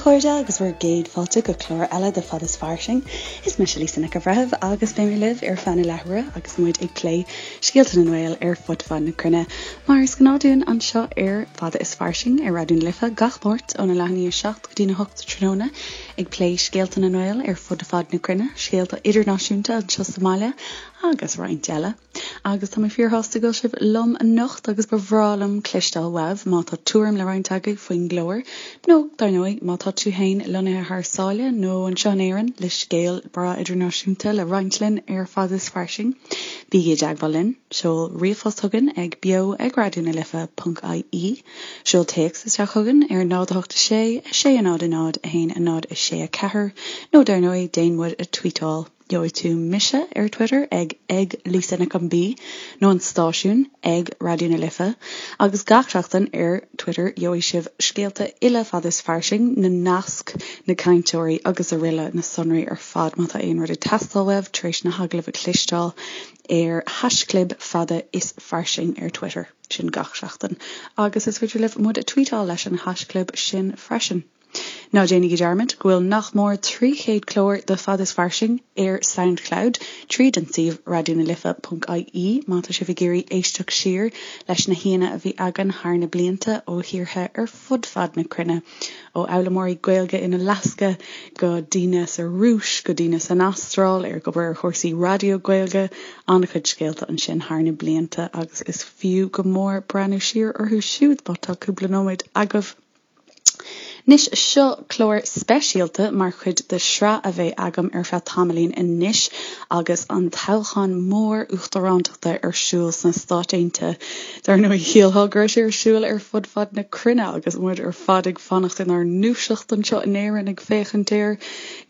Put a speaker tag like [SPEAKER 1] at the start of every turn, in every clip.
[SPEAKER 1] chairde agus bhur gcéad fáilte go clár eile de Fad is Fairsing. Is mise Lisa Nic an Bhreithimh agus beidh mé libh ar feadh na leathuaire agus muid ag plé scéalta na nGael ar fud fad na cruinne. Mar is gnáth dúinn anseo ar Fada is Fairsing ar Raidió na Life gach Máirt óna leath i ndiaidh a 7 go dtína 8 tráthnóna ag plé scéalta na nGael ar fud fad na cruinne, scéalta idirnáisiúnta anseo sa mbaile agus roinnt eile. Agus tá mé fíorshásta go bhfuil sibh liom anocht agus ba bhreá liom cloisteáil uaibh má tá tuairim le roinnt agaibh faoin gclár, nó, dar ndóigh, má tá tú féin lonnaithe thar sáile nó anseo in Éirinn le scéal breá idirnáisiúnta le roinnt linn ar Fada is Fairsing, bígí i dteagmháil linn, seol ríomhphost chugainn ag beo ag raidió na life ponc ie, seol téacs isteach chugainn ar 0 8 6 6 0 0 1 0 6 4, nó dar ndóigh, déan muid a tweetáil. Gheobhaidh tú mise ar Twitter ag ag Lisa Nic an B nó an stáisiún ag Raidió na Life agus gach seachtain ar Twitter gheobhaidh sibh scéalta uile Fada is Fairsing, na naisc, na cainteoirí agus araile na sonraí ar fad má tá aon rud ag teastáil uaibh tar éis na hagallaimh a chloisteáil ar haischlib Fada is Fairsing ar Twitter. Sin gach seachtain. Agus is féidir libh muid a tweetáil leis an haischlib sin freisin. Ná déanaigí dearmad go bhfuil nach mór 300 clár de Fada is Fairsing ar Soundcloud tríd an suíomh raidionalife.ie má tá sibh ag iarraidh éisteacht siar leis na haíonna a bhí againn thar na blianta ó thíortha ar fud fad na cruinne, ó fhoghlaimeoirí Gaeilge in Alasca go daoine sa Rúis go daoine san Astráil ag obair ar chúrsaí raidió Gaeilge. An-chuid scéalta ansin thar na blianta agus is fiú go mór breathnú siar orthu siúd má tá cúpla nóiméad agaibh. Anois, seo clár speisialta mar chuid de shraith a bheidh agam ar feadh tamaillín anois agus an toghchán mór uachtarántachta ar siúl sna Stáit Aontaithe. Dar ndóigh, shílfeá go raibh sé ar siúl ar fud fad na cruinne agus muid ar fad ag fanacht inár ndúiseacht anseo in Éirinn ag féachaint air.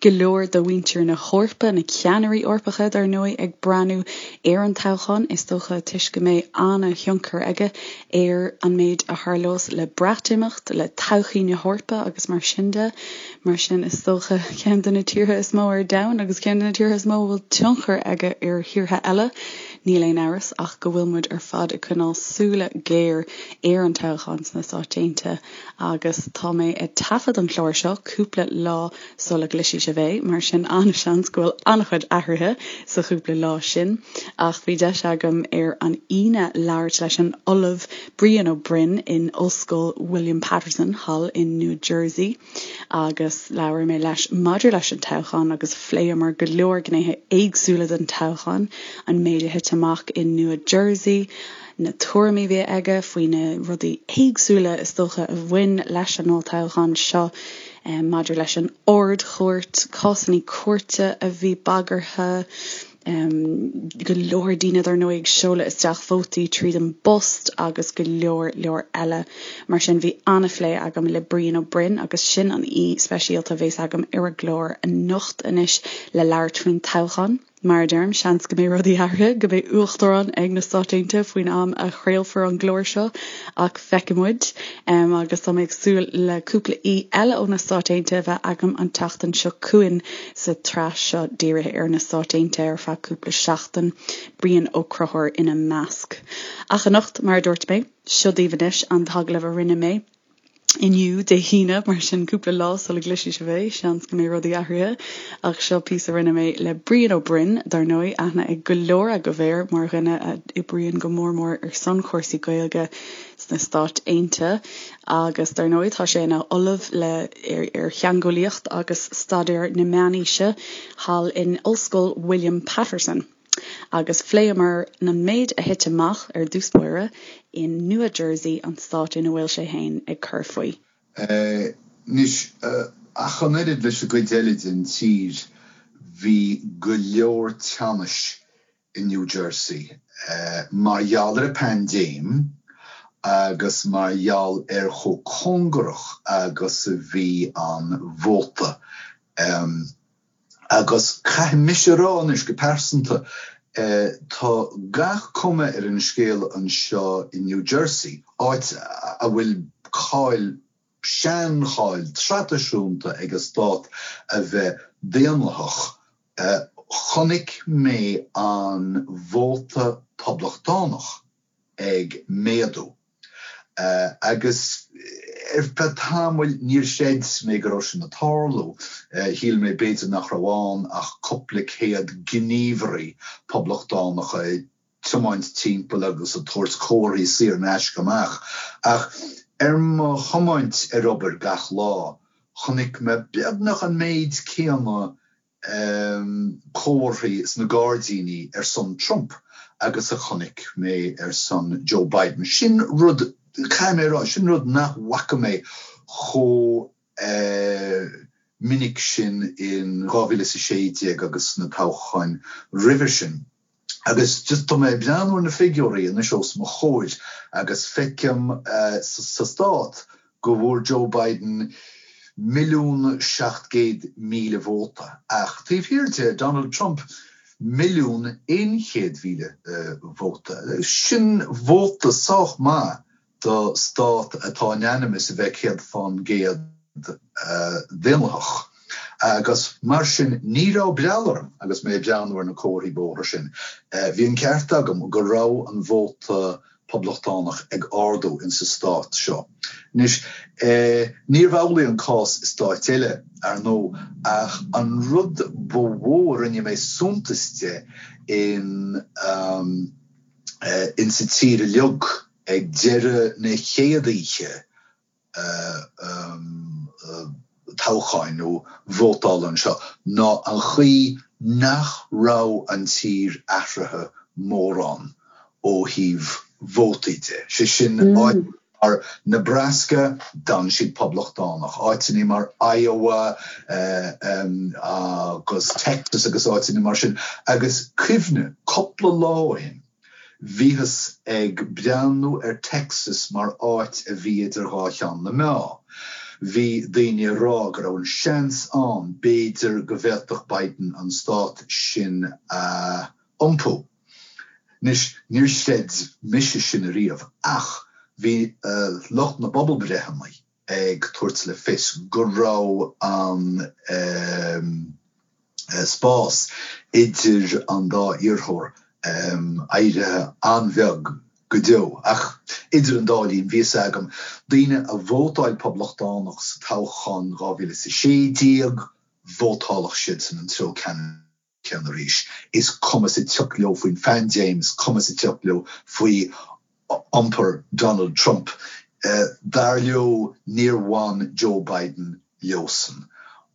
[SPEAKER 1] Go leor de mhuintir na hEorpa, na ceannairí Eorpacha, dar ndóigh, ag breathnú ar an toghchán, is dócha toisc go mbeidh an-thionchar aige ar an méid a tharlós le Breatimeacht, le todhchaí na hEorpa agus mar sin de. Mar sin, is dócha, ceann de na tíortha is mó ar domhan agus ceann de na tíortha is mó a bhfuil tionchar aige ar thíortha eile, níl aon amhras ach go bhfuil muid ar fad ag coinneáil súile géar ar an toghchán sna Stáit Aontaithe agus tá mé ag taifead an chláir seo cúpla lá sula gcloisfidh sibh é, mar sin an-seans go bhfuil an-chuid athruithe sa chúpla lá sin. Ach bhí deis agam ar an Aoine labhairt leis an Ollamh Brian Ó Broin in Ollscoil William Paterson thall in New Jersey agus labhair mé leis maidir leis an toghchán agus phléamar go leor gnéithe éagsúla den toghchán, an méid a thit amach i Nua Jersey, na tuairimí a bhí aige faoi na rudaí éagsúla is dócha a bhain leis an olltoghchán seo maidir leis an Ard-Chúirt, cásanna cúirte a bhí bagartha, go leor daoine dar ndóigh ag seoladh isteach vótaí tríd an bpost agus go leor leor eile. Mar sin bhí an-phlé agam le Brian Ó Broin agus sin an aoi speisialta a bhéas agam ar an gclár anocht anois le labhairt faoin toghchán. Mar a deirim, seans go mbeidh rudaí athraithe, go mbeidh uachtarán ag na Stáit Aontaithe faoin am a chraolfar an clár seo, ach feicfidh muid. Agus tá mé ag súil le cúpla aoi eile ó na Stáit Aontaithe a bheith agam an tseachtain seo chugainn sa tsraith seo dírithe ar na Stáit Aontaithe ar feadh cúpla seachtain, Brian Ó Conchúir ina measc. Ach anocht, mar a dúirt mé, seo daoibh anois an t-agallamh a rinne mé. inniu, Dé hAoine, mar sin cúpla lá sula gcloisfidh sibh é, seans go mbeidh rudaí athraithe. Ach seo píosa a rinne mé le Brian Ó Broin, dar ndóigh, aithne ag go leor agaibh air mar dhuine a oibríonn go mór mór ar son chúrsaí Gaeilge sna Stáit Aontaithe agus dar ndóigh tá sé ina ollamh le ar ar theangeolaíocht agus staidéar na meánaoise thall in Ollscoil William Paterson. Agus phléamar an méid a thit amach ar dtús báire in Nua Jersey, an stát ina bhfuil sé féin ag cur faoi.
[SPEAKER 2] Anois, ach an oiread leis an gcuid eile den tír, bhí go leor teannais i New Jersey mar gheall ar an bpaindéim agus mar gheall ar chomh cóngarach agus a bhí an vóta. Agus caithfidh mise a rá anois, go pearsanta, tá gach cuma ar an scéal anseo i New Jersey, áit a bhfuil cáil, seancháil traidisiúnta ag an stát a bheith daonlathach, chonaic mé an vóta poblachtánach ag méadú. Agus. Ar feadh tamaill níor chreid mé go raibh sin ag tarlú. Shíl mé b'fhéidir nach raibh ann ach cúpla céad gníomhairí poblachtánacha ag tiomáint timpeall agus ag tabhairt comharthaí saor in aisce amach. Ach ar mo thiomáint ar obair gach lá, chonaic mé beagnach an méid céanna comharthaí sna gairdíní ar son Trump agus a chonaic mé ar son Joe Biden. Sin rud, caithfidh mé a rá, sin rud nach bhfaca mé chomh minic sin in 2016 agus sna toghcháin roimhe sin. Agus just tá mé ag breathnú ar na figiúirí anois os mo chomhair agus feicim sa stát go bhfuair Joe Biden 1,700,000 vóta ach taobh thiar de, Donald Trump 1,100,000 vóta. Sin vóta sách maith do stát atá in ainm is a bheith 100% daonlathach. Agus mar sin, ní raibh breall orm agus mé ag breathnú ar na comharthaí bóthair sin. Bhí an ceart agam go raibh an vóta poblachtánach ag ardú insa stát seo. Anois, níorbh amhlaidh an cás i stáit eile, ar ndóigh, ach an rud ba mhó a rinne mé suntas de in insa tír uilig, Ag deireadh na chéad oíche toghcháin nó vótála anseo ná an chaoi nach raibh an tír athraithe mórán ó thaobh vótaí de. Sé sin, áiteanna mar Nebraska, d'fhan siad poblachtánach, áiteanna mar Iowa agus Texas agus áiteanna mar sin. Agus cuimhnigh, cúpla lá ó shin, Bhíothas ag breathnú ar Texas mar áit a bhí idir dhá cheann na meá. Bhí daoine ag rá go raibh an seans ann b'fhéidir go bhféadfadh Biden an stát sin a iompú. Anois, níor chreid mise sin ariamh ach bhí lucht na bpobalbreitheanna ag tabhairt le fios go raibh an spás idir an dá iarrthóir éirithe an-bheag go deo. Ach idir an dá linn, bhí fhios agam, daoine a vótáil Poblachtánach sa toghchán 2016, vótálfadh siadsan an treo ceannann céanna arís. Is cuma sa tsioc leo faoin phaindéim, is cuma sa tsioc leo faoi iompar Donald Trump. Dar leo, níor bhain Joe Biden leosan.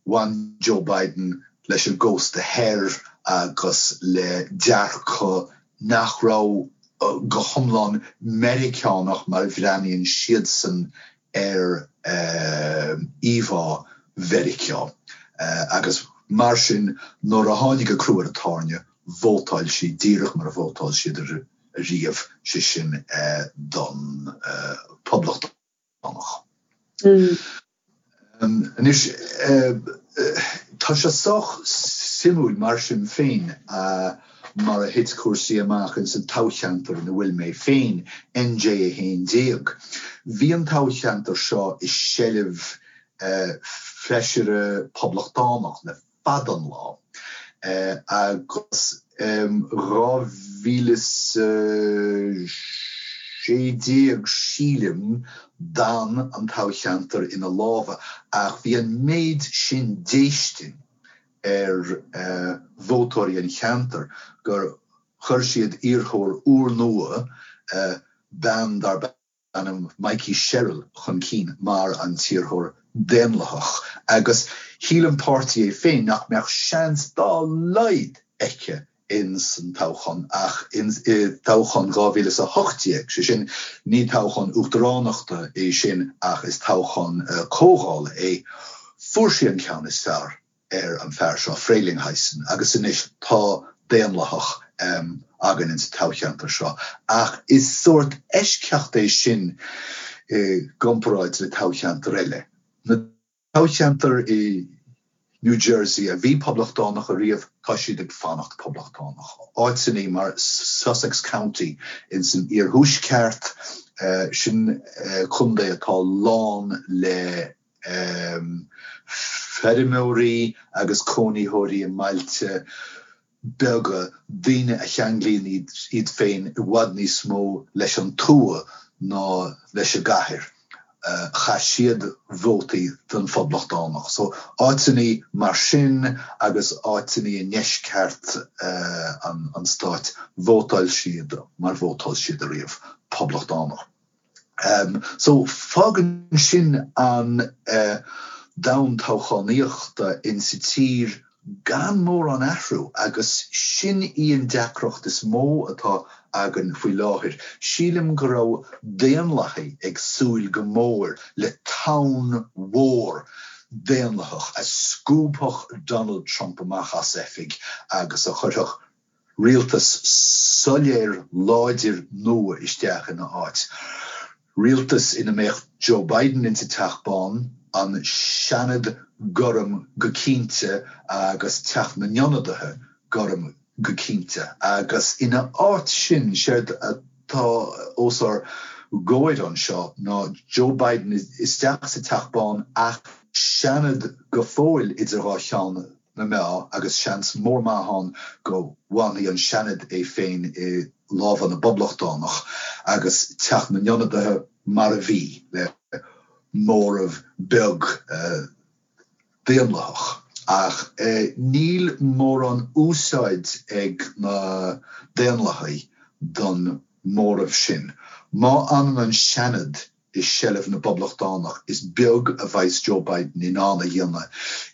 [SPEAKER 2] Bhain Joe Biden leis an gcósta thoir agus le dearcadh nach raibh go hiomlán Meiriceánach mar a bhreathnaíonn siadsan ar íomhá Mheiriceá agus mar sin nuair a tháinig an crú ar an tairne, vótáil siad díreach mar a vótáil siad ariamh, sé sin don Phoblachtánach. Anois, tá sé sách suimiúil mar sin féin mar a thit cúrsaí amach ins an toghcheantar ina bhfuil mé féin, NJ 11. Bhí an toghcheantar seo i seilbh feisire poblachtánach le fada an lá agus 2016 sílim d'fhan an toghcheantar ina lámha ach bhí an méid sin déistin ar vótóirí an cheantair gur chuir siad iarrthóir úrnua, bean darb ainm Mikie Sherrill chun cinn mar an t-iarrthóir Daonlathach agus shíl an páirtí é féin nach mbeadh seans dá laghad aici ins an toghchán ach i dtoghchán 2018, sé sin, ní toghchán uachtaránachta é sin ach is toghchán comhdhála é, fuair sí an ceann is fearr. ar an fear seo, Frelinghuysen, agus anois tá Daonlathach againn insa toghcheantar seo. Ach is sórt eisceacht é sin i gcomparáid le toghcheantair eile. Na toghcheantair i New Jersey a bhí Poblachtánach ariamh, tá siad ag fanacht Poblachtánach. Áiteanna mar Sussex County insan iarthuaisceart, sin contae atá lán le feirmeoirí agus cónaitheoirí i mbailte beaga, daoine a cheanglaíonn iad féin i bhfad níos mó leis an tuath ná leis an gcathair. Chaith siad vótaí don Phoblachtánach. So, áiteannaí mar sin agus áiteannaí i ndeisceart an stáit, vótáil siad mar vótáil siad ariamh, Poblachtánach. So, fágann sin an domhan toghchánaíochta insa tír gan mórán athrú agus sin í an deacracht is mó atá againn faoi láthair. Sílim go raibh Daonlathaigh ag súil go mór le tonn mhór Daonlathach a scuabfadh Donald Trump amach as oifig agus a chuirfeadh rialtas soiléir láidir nua isteach ina áit. Rialtas ina mbeadh Joe Biden insa Teach Bán, an Seanad gorm go cinnte agus Teach na nIonadaithe gorm go cinnte. Agus ina áit sin, séard atá os ár gcomhair anseo ná Joe Biden isteach sa Teach Bán ach Seanad go fóill idir dhá cheann na meá agus seans mór maith ann go bhfanfaidh an Seanad é féin i lámha na bPoblachtánach agus Teach na nIonadaithe mar a bhí, le móramh beag Daonlathach. Ach níl mórán úsáid ag na Daonlathaigh don móramh sin. Má fhanann an Seanad i seilbh na bPoblachtánach, is beag a bheas Joe Biden in ann a dhéanamh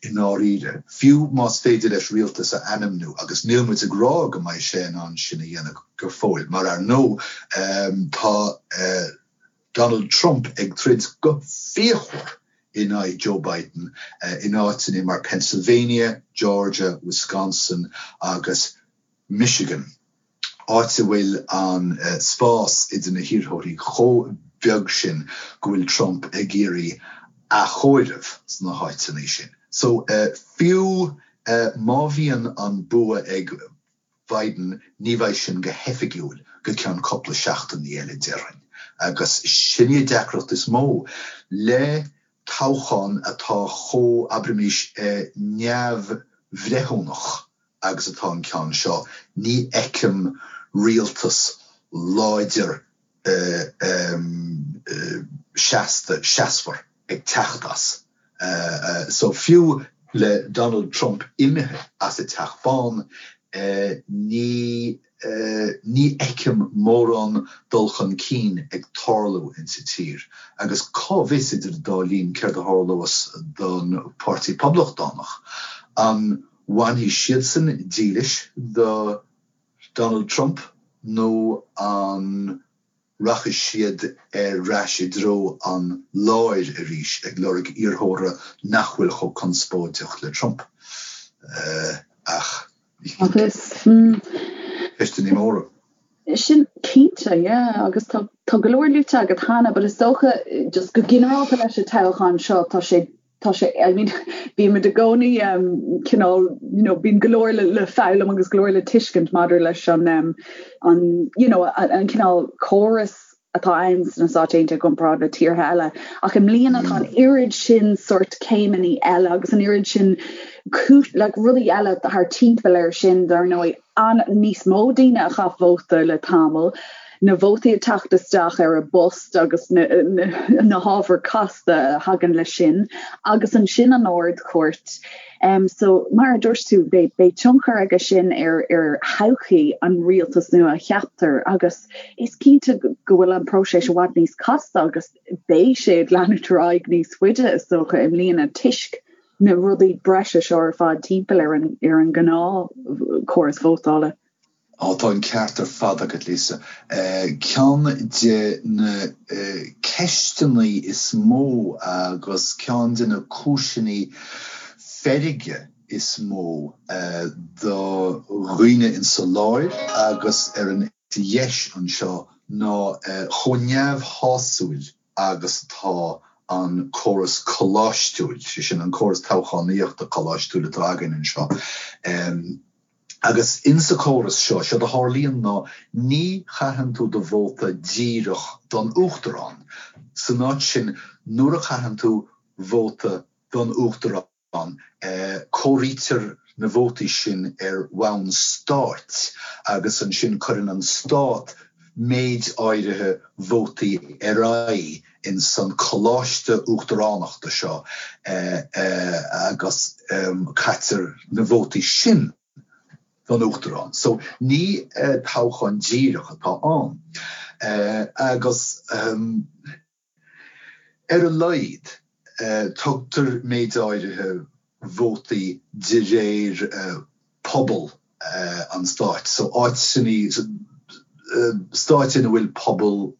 [SPEAKER 2] i ndáiríre, fiú más féidir leis rialtas a ainmniú, agus níl muid ag rá go mbeidh sé in ann sin a dhéanamh go fóill, mar ar ndóigh tá Donald Trump ag troid go fíochmhar in aghaidh Joe Biden in áiteanna mar Pennsylvania, Georgia, Wisconsin agus Michigan. áit a bhfuil an spás idir na hiarrthóirí chomh beag sin go bhfuil Trump ag iarraidh athchomhaireamh sna háiteanna sin. So, fiú má bhíonn an bua ag Biden, ní bheidh sin go hoifigiúil go ceann cúpla seachtainí eile, déarfainn. Agus sin í an deacracht is mó le toghchán atá chomh, abraimis, neamhbhreithiúnach agus atá an ceann seo, ní fheicim rialtas láidir seasta, seasmhar ag teacht as. So fiú le Donald Trump imithe as an Teach Bán, ní ní fheicim mórán dul chun cinn ag tarlú insa tír. Agus cá bhfios idir an dá linn céard a tharlós don Pháirtí Poblachtánach? An bhfanfaidh siadsan dílis do Donald Trump nó an rachaidh siad ar ais i dtreo an láir arís ag lorg iarrthóra nach bhfuil chomh conspóideach le Trump? Ach
[SPEAKER 1] Agus.
[SPEAKER 2] Ceisteanna móra.
[SPEAKER 1] Sin cinnte, yeah, agus tá tá go leor luaite agat cheana, but is dócha just go ginearálta leis an toghchán seo tá sé tá sé, I mean, bímid i gcónaí um, cineál, you know, bíonn go leor le, le foghlaim agus go leor le tuiscint maidir leis an, um, an, you know, an, an cineál córas atá ann sna Stáit Aontaithe i gcomparáid le tíortha eile. Ach i mbliana tá an oiread sin sort céimeanna eile agus an oiread sin like, rudaí eile thar timpeall air sin, dar ndóigh, an níos mó daoine a chaith vóta le tamall, na vótaí ag teacht isteach ar an bpost agus na, na, na hábhair casta a thagann leis sin, agus ansin an Ard-Chúirt. Um, so, mar a dúirt tú, beidh, beidh tionchar aige sin ar, ar thodhchaí an rialtas nua a cheaptar agus is cinnte go bhfuil an próiseas i bhfad níos casta agus beidh sé ag leanúint ar aghaidh níos faide is dócha i mbliana toisc na rudaí breise seo ar fad timpeall ar an ar an ngnáthchóras vótála.
[SPEAKER 2] Á, tá an ceart ar fad agat, Lisa. Ceann de na ceisteanna is mó agus ceann de na cúiseanna feirge is mó do dhaoine insa láir agus ar an dheis anseo ná chomh neamhshásúil agus atá an córas coláistiúil, sé sin, an córas toghchánaíochta coláistiúil atá againn anseo. Agus insa córas seo, séard a tharlaíonn ná ní chaitheann tú do vóta díreach don Uachtarán. San áit sin, nuair a chaitheann tú vóta don Uachtarán, Comhairítear na vótaí sin ar bhonn stáit agus ansin cuireann an stát méid áirithe vótaí ar aghaidh. ins an coláiste uachtaránachta seo agus caitear na vótaí sin don uachtarán. So ní toghchán díreach atá ann. Agus ar a laghad tugtar méid áirithe vótaí de réir pobal an stáit. So áiteanna, stáit ina bhfuil pobail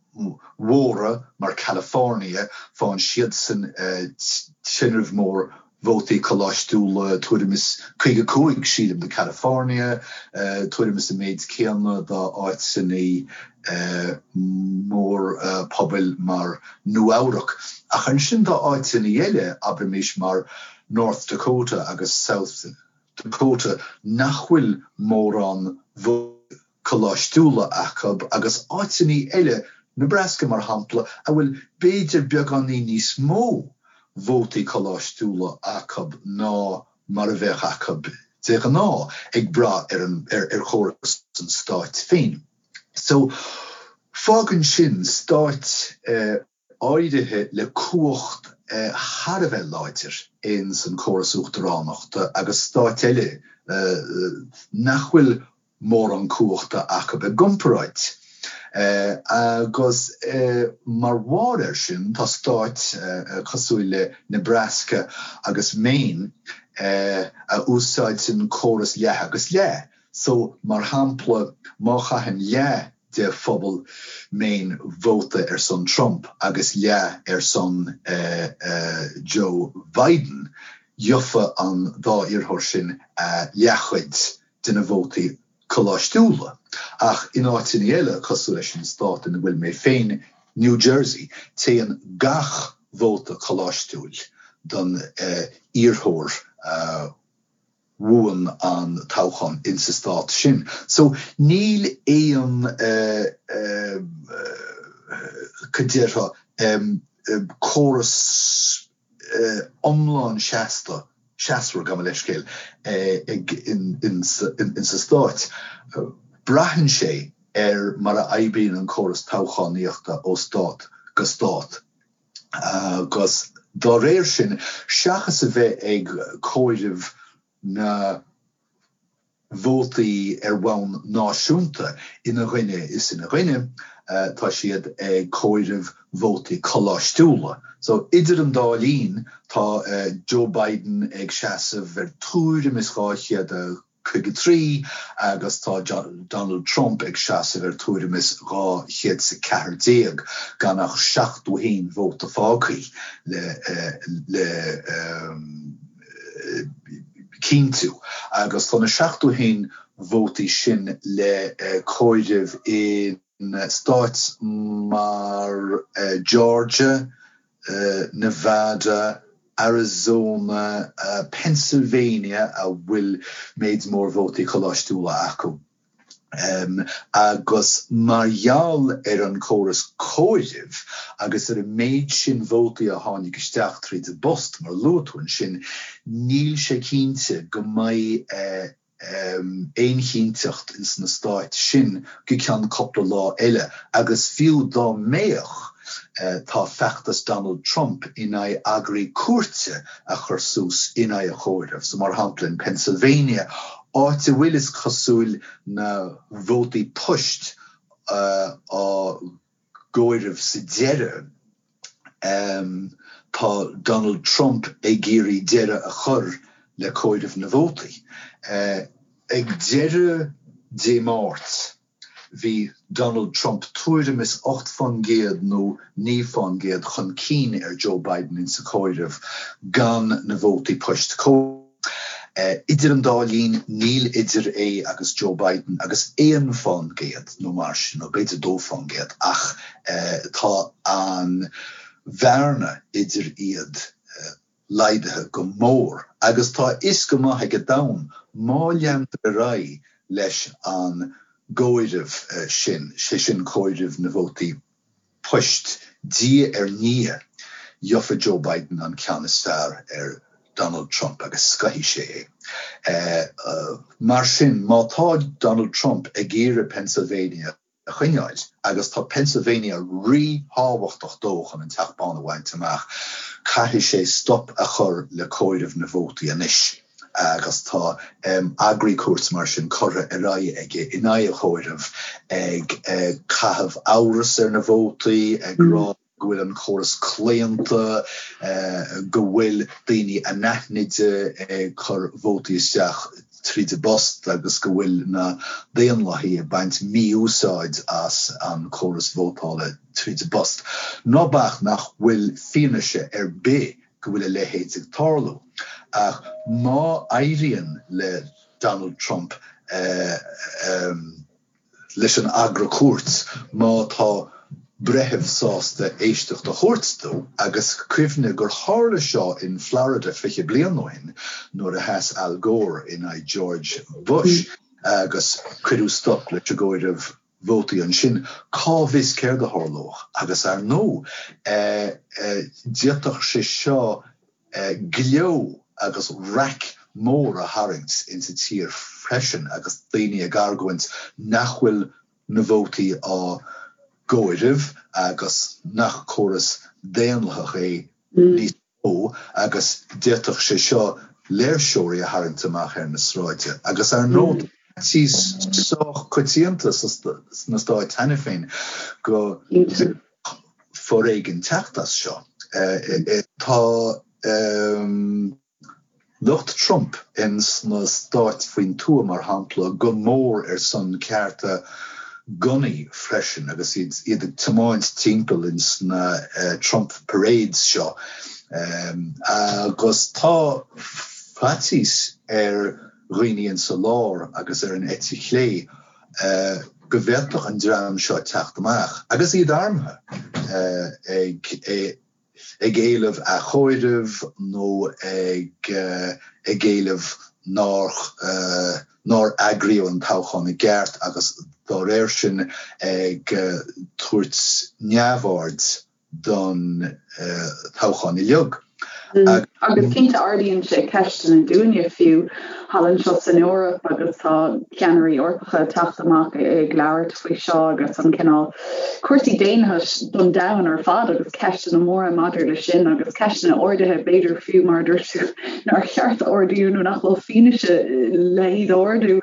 [SPEAKER 2] mhóra mar California, faigheann siadsan tinreamh mór vótaí coláistiúla, tuairim is 55, sílim, do California, tuairim is an méid céanna do áiteanna mór-pobail mar Nua-Eabhrac. Ach ansin tá áiteanna eile, abraimis mar North Dakota agus South Dakota, nach bhfuil mórán vótaí coláistiúla acu agus áiteanna eile, Nebraska mar shampla, a bhfuil b'fhéidir beagáinín níos mó vótaí coláistiúla acu ná mar a bheadh acu de ghnáth, ag brath ar an ar chóras an stáit féin. So, fágann sin stáit áirithe le cumhacht thar a bheith láidir ins an córas uachtaránachta agus stáit eile nach bhfuil mórán cumhachta acu i gcomparáid. Agus mar bharr air sin tá stáit cosúil le Nebraska agus Maine a úsáideann córas leath agus leath. So, mar shampla, má chaitheann leath de phobal Maine vóta ar son Trump agus leath ar son Joe Biden, gheofa an dá iarrthóir sin a leathchuid de na vótaí coláistiúla. Ach in áiteanna eile, cosúil leis an stát ina bhfuil mé féin, New Jersey, téann gach vóta coláistiúil don iarrthóir a bhuann an toghchán insa stát sin. So níl aon, cad déarfá, córas iomlán seasta, seasmhar, gabh mo leithscéal, ag insa stáit. Braitheann sé ar mar a oibríonn an córas toghchánaíochta ó stát go stát. Agus dá réir sin, seachas a bheith ag comhaireamh na vótaí ar bhonn náisiúnta ina dhuine is ina dhuine, tá siad ag comhaireamh vótaí coláistiúla. So, idir an dá linn, tá Joe Biden ag seasamh ar tuairim is 253 agus tá Donald Trump ag seasamh ar tuairim is 214, gan ach 71 vóta fágtha le le cinntiú, agus tá na 71 vótaí sin le comhaireamh in stáit mar Georgia, Nevada, Arizona, Pennsylvania a bhfuil méid mór vótaí coláistiúla acu. Agus mar gheall ar an córas comhairimh agus ar an méid sin vótaí a tháinig isteach tríd an bpost, mar a luaigh tú ansin, níl sé cinnte go mbeidh aon chinnteacht ins na stáit sin go ceann cúpla lá eile. Agus fiú dá mbeadh, tá feachtas Donald Trump in aghaidh agraí cúirte a chur suas in aghaidh an chomhairimh. So, mar shampla, in Pennsylvania, áit a bhfuil, is cosúil, na vótaí poist á gcomhaireamh sa deireadh, tá Donald Trump ag iarraidh deireadh a chur le comhaireamh na vótaí. Ag deireadh Dé Máirt, Bhí Donald Trump tuairim is 8% nó 9% chun cinn ar Joe Biden insa chomhaireamh gan na vótaí poist comhairte. Idir an dá linn níl idir é agus Joe Biden agus 1% nó mar sin, nó b'fhéidir 2%, ach tá an bhearna idir iad laghdaithe go mór agus tá a fhios go maith ag an domhan má leantar ar aghaidh leis an gcomhaireamh sin, sé sin comhaireamh na vótaí poist diaidh ar ndiaidh, gheofa Joe Biden an ceann is fearr ar Donald Trump agus scoithfidh sé é. Mar sin, má tá Donald Trump ag iarraidh Pennsylvania. a choinneáil agus tá Pennsylvania ríthábhachtach dó chun an Teach Bán a bhaint amach. Caithfidh sé stop a chur le comhaireamh na vótaí anois agus tá agraí cúirte mar sin curtha ar aghaidh aige in aghaidh an chomhairimh, ag caitheamh amhras ar na vótaí, ag rá go bhfuil an córas claonta, go bhfuil daoine anaithnide ag cur vótaí isteach tríd an bpost agus go bhfuil na Daonlathaigh ag baint mí-úsáid as an córas vótála tríd an bpost. Ná bac nach bhfuil fianaise ar bith go bhfuil a leithéid ag tarlú. Ach má éiríonn le Donald Trump leis an agra cúirt má tá breitheamh sásta éisteacht a thabhairt dó agus cuimhnigh gur tharla seo in Florida 20 bliain ó shin nuair a sheas Al Gore in aghaidh George Bush agus cuireadh stop leis an gcomhaireamh vótaí ansin. Cá bhfios céard a tharlódh? Agus ar ndóigh d'fhéadfadh sé seo gleo agus raic mór a tharraingt insa tír freisin agus daoine ag argóint nach bhfuil na vótaí á gcomhaireamh agus nach córas daonlathach é níos mó agus d'fhéadfadh sé seo léirseoirí a tharraingt amach ar na sráide. Agus ar ndóigh tá faitíos sách coitianta sna Stáit cheana féin go foréigean teacht as seo. Tá lucht Trump ins na stáit faoin tuath, mar shampla, go mór ar son cearta gunnaí freisin agus iad ag tiomáint timpeall ins na Trump parades seo. Agus tá faitíos ar dhaoine insa lár agus ar an eite chlé go bhféadfadh an dream seo teacht amach, agus iad armtha, ag ag éileamh athchomhairimh nó ag ag éileamh nár nár eagraíodh an toghchán i gceart agus dá réir sin ag tabhairt neamhaird don toghchán uilig.
[SPEAKER 1] Agus cinnte ardaíonn sé ceisteanna dúinne fiú thall anseo san Eoraip agus tá ceannairí Eorpacha ag teacht amach ag labhairt faoi seo agus an cineál cúrsaí daonlathais don domhan ar fad agus ceisteanna móra maidir le sin agus ceisteanna ardaithe b'fhéidir fiú mar a dúirt tú nár cheart a ardú nó nach bhfuil fianaise le hiad a ardú.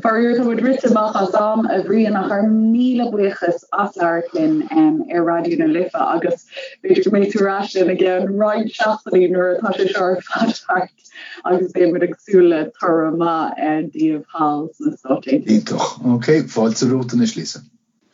[SPEAKER 1] Faraor tá muid rite amach as am, a Bhriain, ach ár míle buíochas as labhairt linn ar Raidió na Life agus b'fhéidir go mbeidh tú ar ais linn i gceann roinnt seachtainí nuair atá sé seo ar fad thart agus beidh muid ag súil le toradh maith daoibh thall sna Stáit
[SPEAKER 2] Aontaithe. Iontach. Ok, fáilte romhat anois, Lisa.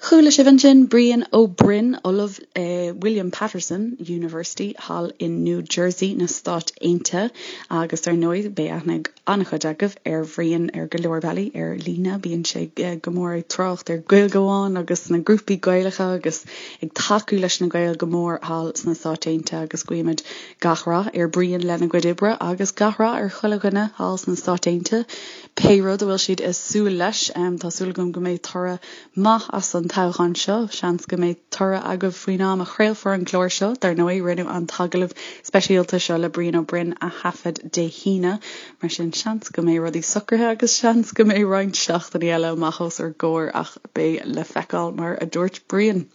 [SPEAKER 1] Chuala sibh ansin Brian Ó Broin, Ollamh i William Paterson University thall in New Jersey na Stáit Aontaithe agus ar ndóigh beidh aithne ag an-chuid agaibh ar Bhrian ar go leor bealaí ar líne. Bíonn sé go mór ag trácht ar Gaeilge Amháin agus na grúpaí Gaelacha agus ag tacú leis na Gaeil go mór thall sna Stáit Aontaithe agus guímid gach rath ar Brian lena gcuid oibre agus gach rath ar chuile dhuine thall sna Stáit Aontaithe pé rud a bhfuil siad ag súil leis. Tá súil agam go mbeidh toradh maith as an toghchán seo. Seans go mbeidh toradh agaibh faoin am a chraolfar an clár seo. Dar ndóigh, rinneadh an t-agallamh speisialta seo le Brian Ó Broin a thaifead Dé hAoine, mar sin seans go mbeidh rudaí socraithe agus seans go mbeidh roinnt seachtainí eile amach os ár gcomhair ach beidh le feiceáil mar a dúirt Brian.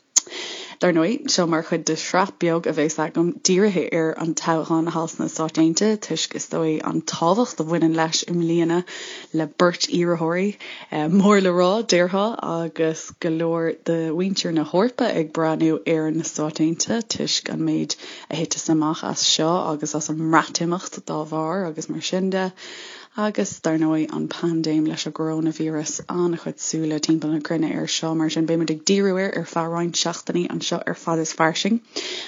[SPEAKER 1] Dar ndóigh, seo mar chuid de shraith beag a bheas agam dírithe ar an toghchán thall sna Stáit Aontaithe toisc, is dóigh, an tábhacht a bhaineann leis i mbliana le beirt iarrthóirí mór le rá, déarfá, agus go leor de mhuintir na hEorpa ag breathnú ar na Stáit Aontaithe toisc an méid a thiteas amach as seo agus as an mBreatimeacht dá bharr agus mar sin de. Agus, dar ndóigh, an paindéim leis an gcoróinvíreas, an-chuid súile timpeall na cruinne air seo, mar sin beidh muid ag díriú air ar feadh roinnt seachtainí anseo ar Fad is Fairsing.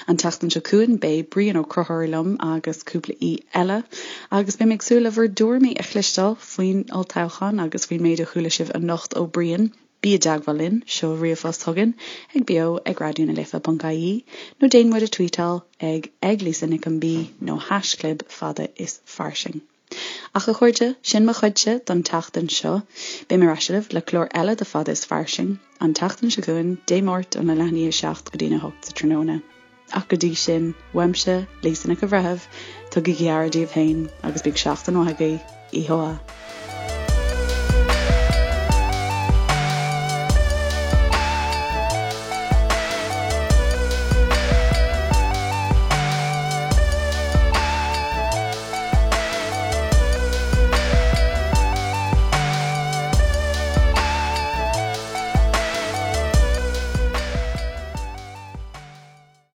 [SPEAKER 1] An tseachtain seo chugainn beidh Brian Ó Conchúir liom agus cúpla aoi eile, agus beidh mé ag súil le bhur dtuairimí a chloisteáil faoin olltoghchán agus faoin méid a chuala sibh anocht ó Brian. Bí i dteagmháil linn, seol ríomhphost chugainn ag beo ag raidionalife ponc ie nó déan muid a tweetáil ag ag Lisa Nic an B nó haischlib fada is fairsing. Ach a chairde, sin mo chuidse don tseachtain seo. Beidh mé ar ais libh le clár eile de Fada is Fairsing, an tseachtain seo chugainn, Dé Máirt óna leath i ndiaidh 7 go dtína 8 sa tráthnóna. Ach go dtí sin, uaimse, Lisa Nic an Bhreithimh, tugaigí aire daoibh féin agus bíodh seachtain mhaith agaibh. Oíche mhaith.